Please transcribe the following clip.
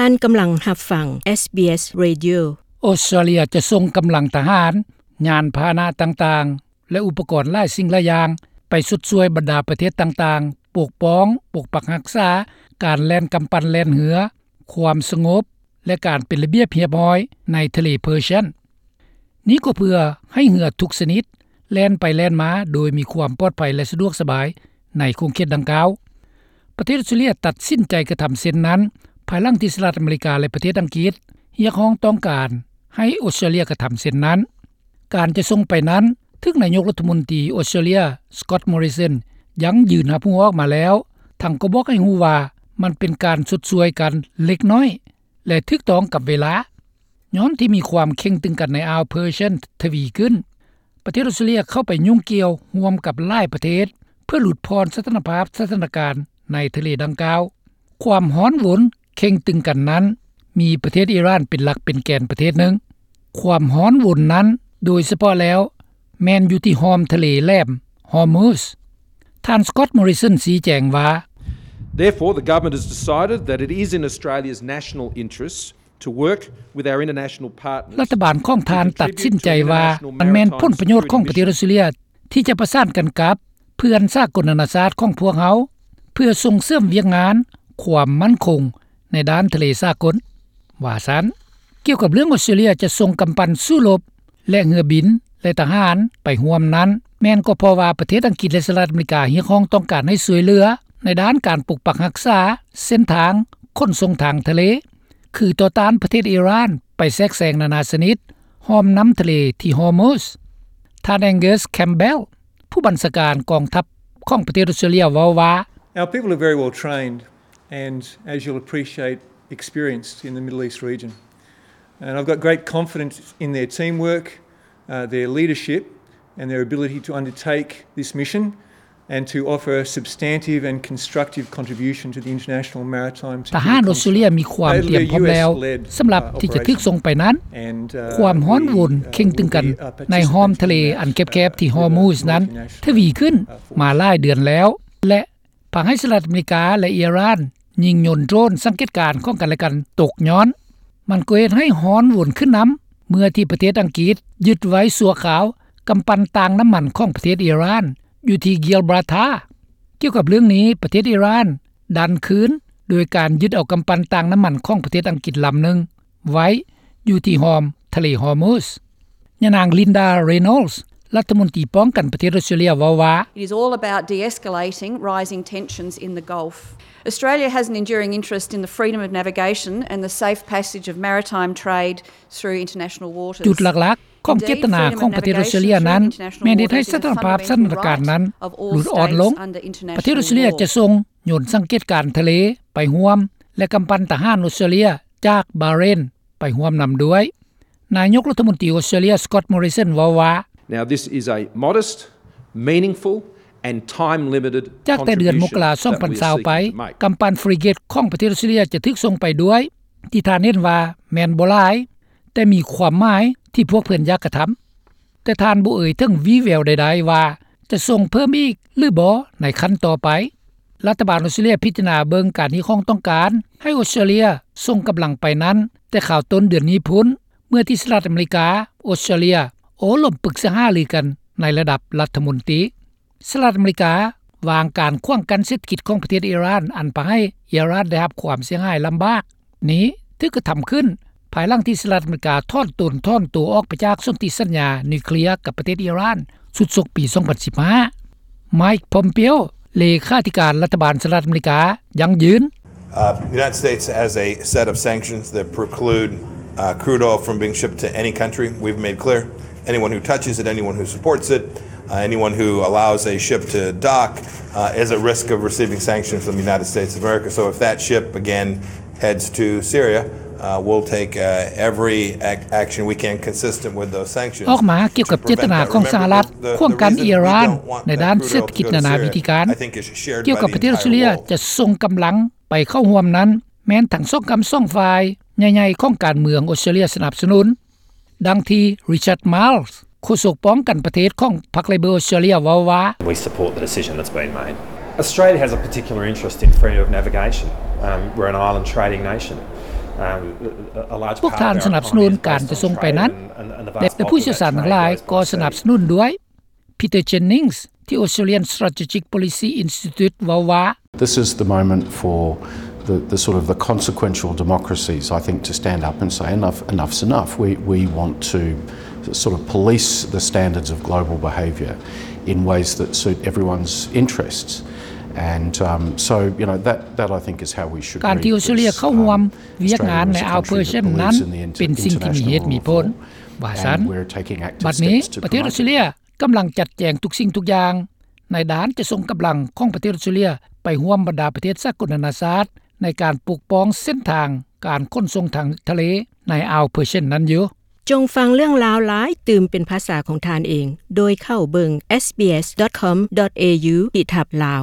ທ່ານກຳລັງຮັບຟັງ SBS Radio. ອອສເຕຣເລຍຈະສົ່ງກຳລັງທະຫານ, ຍານພາຫະນະຕ່າງໆ ແລະ ອຸປະກອນຫຼາຍສິ່ງຫຼາຍຢ່າງ ໄປຊົດຊ່ວຍບັນດາປະເທດຕ່າງໆ, ປົກປ້ອງ, ປົກປັກຮັກສາການແລ່ນກຳປັ່ນແລ່ນເຮືອ, ຄວາມສະຫງົບ ແລະ ການເປັນລະບຽບຮຽບຮ້ອຍໃນທະເລເພີເຊຍນ. ນີ້ກໍເພື່ອໃຫ້ເຮືອທຸກຊະນິດແລ່ນໄປແລ່ນມາໂດຍມີຄວາມປອດໄພ ແລະ ສະດວກສະບາຍໃນຂົງເຂດດັ່ງກ່າວ. ປະເທດອອສເຕຣເລຍຕັດສິນໃຈກະທຳເຊັ່ນນັ້ນ ພາຍຫຼັງທີ່ສະຫະລັດອາເມລິກາ ແລະ ປະເທດອັງກິດຮຽກຮ້ອງຕ້ອງການໃຫ້ອອສເຕຣເລຍກະທຳເຊັ່ນນັ້ນ. ການຈະສົ່ງໄປນັ້ນ ຖືກນາຍົກລັດຖະມົນຕີອອສເຕຣເລຍ Scott Morrison ຢັ້ງຢືນຮັບຮູ້ອອກມາແລ້ວ, ທັງກໍບອກໃຫ້ຮູ້ວ່າມັນເປັນການຊົດຊ່ວຍກັນເລັກນ້ອຍ ແລະ ຖືກຕ້ອງກັບເວລາ. ຍ້ອນທີ່ມີຄວາມເຄັ່ງຕຶງກັນໃນອ່າວເພີເຊຍນທະວີຂຶ້ນ, ປະເທດອອສເຕຣເລຍເຂົ້າໄປຫຍຸ້ງກ່ຽວຮ່ວມກັບຫຼາຍປະເທດ ເພື່ອຫຼຸດຜ່ອນສະຖານະພາບສະຖານະການໃນທະເລດັ່ງກ່າວ. ຄວາມຮ້ອນວົນເຄັ່ງຕຶງກັນນັ້ນ ມີປະເທດອີຣານເປັນຫຼັກເປັນແກນປະເທດໜຶ່ງ. ຄວາມຮ້ອນວົນນັ້ນ ໂດຍສະເພາະແລ້ວ ແມ່ນຢູ່ທີ່ຮ່ອມທະເລແຫຼມຮອຣ໌ມຸດ. ທ່ານ Scott Morrison ຊີ້ແຈງວ່າ, Therefore, the government has decided that it is in Australia's national interest to work with our international partners. ລັດຖະບານຂອງທ່ານຕັດສິນໃຈວ່າ ມັນແມ່ນຜົນປະໂຫຍດຂອງປະເທດອອສເຕຣເລຍ ທີ່ຈະປະສານກັນກັບເພື່ອນສາກົນນານາຊາດຂອງພວກເຮົາ ເພື່ອສົ່ງເສີມວຽກງານຄວາມໝັ້ນຄົງໃນດ້ານທະເລສາກົນ, ວ່າຊັ້ນ. ກ່ຽວກັບເລື່ອງອອສເຕຣເລຍຈະສົ່ງກຳປັ່ນສູ້ລົບ ແລະ ເຮືອບິນ ແລະ ທະຫານໄປຮ່ວມນັ້ນ, ແມ່ນກໍເພາະວ່າປະເທດອັງກິດ ແລະ ສະຫະລັດອາເມລິກາຮຽກຮ້ອງຕ້ອງການໃຫ້ຊ່ວຍເຫຼືອໃນດ້ານການປົກປັກຮັກສາເສັ້ນທາງຂົນສົ່ງທາງທະເລ, ຄືຕໍ່ຕ້ານປະເທດອີຣານໄປແຊກແຊງນານາຊະນິດຮ່ອມນ້ຳທະເລທີ່ຮອຣ໌ມຸດ. ທ່ານ Angus Campbell ຜູ້ບັນຊາການກອງທັບຂອງປະເທດອອສເຕຣເລຍເວົ້າວ່າ, Our people are very well trained and, as you'll appreciate, experienced in the Middle East region. And I've got great confidence in their teamwork, uh, their leadership and their ability to undertake this mission and to offer a substantive and constructive contribution to the international maritime security. ທະຫານອອສເຕຣເລຍມີຄວາມຕຽມພ້ອມແລ້ວສຳລັບທີ່ຈະຖືກສົ່ງໄປນັ້ນ. ຄວາມຮ້ອນວົນເຄັ່ງຕຶງກັນໃນຮ່ອມທະເລອັນແຄບໆທີ່ຮອຣ໌ມຸດນັ້ນທະວີຂຶ້ນມາຫຼາຍເດືອນແລ້ວ ແລະ ພາໃຫ້ສະຫະລັດອາເມລິກາ ແລະ ອີຣານຍິງຍົນໂດຣນສັງເກດການຂອງກັນແລະກັນຕົກຍ້ອນ. ມັນກໍເຮັດໃຫ້ຮ້ອນວົນຂຶ້ນນຳ ເມື່ອທີ່ປະເທດອັງກິດຍຶດໄວ້ຊົ່ວຄາວກຳປັ່ນຕ່າງນ້ຳມັນຂອງປະເທດອີຣານ ຢູ່ທີ່ Gibraltar. ກ່ຽວກັບເລື່ອງນີ້, ປະເທດອີຣານດັນຄືນໂດຍການຍຶດເອົາກຳປັ່ນຕ່າງນ້ຳມັນຂອງປະເທດອັງກິດລຳໜຶ່ງໄວ້ຢູ່ທີ່ຮ່ອມທະເລຮອຣ໌ມຸດ. ຍານາງ Linda Reynolds ລັດຖະມົນຕີປ້ອງກັນປະເທດອອສເຕຣເລຍເວົ້າວ່າ, It is all about de-escalating rising tensions in the Gulf. Australia has an enduring interest in the freedom of navigation and the safe passage of maritime trade through international waters. ຈຸດຫຼັກໆຂອງເຈດຕະນາຂອງປະເທດອອສເຕຣເລຍນັ້ນ ແມ່ນເຮັດໃຫ້ສະຖານະພາບສະຖານະການນັ້ນຫຼຸດອ່ອນລົງ. ປະເທດອອສເຕຣເລຍຈະສົ່ງຍົນສັງເກດການທະເລໄປຮ່ວມ ແລະ ກຳປັ່ນທະຫານອອສເຕຣເລຍຈາກບາເຣນໄປຮ່ວມນຳດ້ວຍ. ນາຍົກລັດຖະມົນຕີອອສເຕຣເລຍ Scott Morrison ເວົ້າວ່າ, Now, this is a modest, meaningful and time-limited contribution that we are seeking to make. ຈາກແຕ່ເດືອນມົກກະລາ ສອງພັນຊາວໄປ, ກຳປັ່ນຟຣິເກັດຂອງປະເທດອອສເຕຣເລຍຈະຖືກສົ່ງໄປດ້ວຍ, ທີ່ທ່ານເຫັນວ່າແມ່ນບໍ່ຫຼາຍ, ແຕ່ມີຄວາມໝາຍທີ່ພວກເພິ່ນຢາກກະທຳ. ແຕ່ທ່ານບໍ່ເອີ່ຍເຖິງວີ່ແວວໃດໆວ່າຈະສົ່ງເພີ່ມອີກຫຼືບໍ່ໃນຂັ້ນຕໍ່ໄປ. ລັດຖະບານອອສເຕຣເລຍພິຈາລະນາເບິ່ງການຮຽກຮ້ອງຕ້ອງການໃຫ້ອອສເຕຣເລຍສົ່ງກຳລັງໄປນັ້ນ ແຕ່ຄາວຕົ້ນເດືອນນີ້ພຸ້ນ, ເມື່ອທີ່ສະຫະລັດອາເມລິກາ, ອອສເຕຣເລຍ ໂອ້ລົມປຶກສາຫາລືກັນໃນລະດັບລັດຖະມົນຕີ. ສະຫະລັດອາເມລິກາວາງການຂວາງກັ້ນເສດຖະກິດຂອງປະເທດອີຣານ ອັນພາໃຫ້ອີຣານໄດ້ຮັບຄວາມເສຍຫາຍລຳບາກນີ້ ຖືກກະທຳຂຶ້ນ ພາຍຫຼັງທີ່ສະຫະລັດອາເມລິກາຖອນຕົນ ຖອນຕົວອອກໄປຈາກສົນທິສັນຍານິວເຄລຍກັບປະເທດອີຣານ ຊຸດສົກປີສອງພັນສິບຫ້າ. Mike Pompeo ເລຂາທິການລັດຖະບານສະຫະລັດອາເມລິກາ ຢັ້ງຢືນ, Uh, the United States has a set of sanctions that preclude, uh, crude oil from being shipped to any country. We've made clear anyone who touches it, anyone who supports it, uh, anyone who allows a ship to dock, uh, is at risk of receiving sanctions from the United States of America. So if that ship, again, heads to Syria, uh, we'll take, uh, every ac-, action we can consistent with those sanctions. ອອກມາກ່ຽວກັບເຈດຕະນາຂອງສະຫະລັດ ຂວາງກັ້ນອີຣານໃນດ້ານເສດຖະກິດນານາວິທີການ. ກ່ຽວກັບປະເທດອອສເຕຣເລຍຈະສົ່ງກຳລັງໄປເຂົ້າຮ່ວມນັ້ນ ແມ່ນທັງສອງກ້ຳສອງຝ່າຍໃຫຍ່ໆຂອງການເມືອງອອສເຕຣເລຍສະໜັບສະໜູນ. ດັ່ງທີ່ Richard Marles ໂຄສົກປ້ອງກັນປະເທດຂອງພັກ Labor ອອສເຕຣເລຍ ເວົ້າວ່າ, We support the decision that's been made. Australia has a particular interest in freedom of navigation. Um, we're an island trading nation. ພວກທ່ານສະໜັບສະໜູນການຈະສົ່ງໄປນັ້ນ ແລະຜູ້ຊ່ຽວຊານທັງຫຼາຍກໍສະໜັບສະໜູນດ້ວຍ. Peter Jennings ທີ່ Australian Strategic Policy Institute ເວົ້າວ່າ This is the moment for the, the sort of the consequential democracies, I think, to stand up and say enough, enough's enough. We, we want to sort of police the standards of global behaviour in ways that suit everyone's interests. And um, so, you know, that, that I think is how we should ການທີ່ອອສເຕຣເລຍເຂົ້າຮ່ວມວຽກງານໃນອ່າວເພີເຊຍນັ້ນ ເປັນສິ່ງທີ່ມີເຫດມີຜົນ ວ່າຊັ້ນ. ບັດນີ້ປະເທດອອສເຕຣເລຍກຳລັງຈັດແຈງທຸກສິ່ງທຸກຢ່າງ ນາຍທະຫານຈະສົ່ງກຳລັງຂອງປະເທດອອສເຕຣເລຍໄປຮ່ວມບັນດາປະເທດສາກົນນານາຊາດ ໃນການປົກປ້ອງເສັ້ນທາງການຂົນສົ່ງທາງທະເລໃນອ່າວເພີເຊຍນັ້ນຢູ່. ຈົ່ງຟັງເລື່ອງລາວຫຼາຍຕື່ມເປັນພາສາຂອງທ່ານເອງ ໂດຍເຂົ້າເບິ່ງ sbs.com.au/lao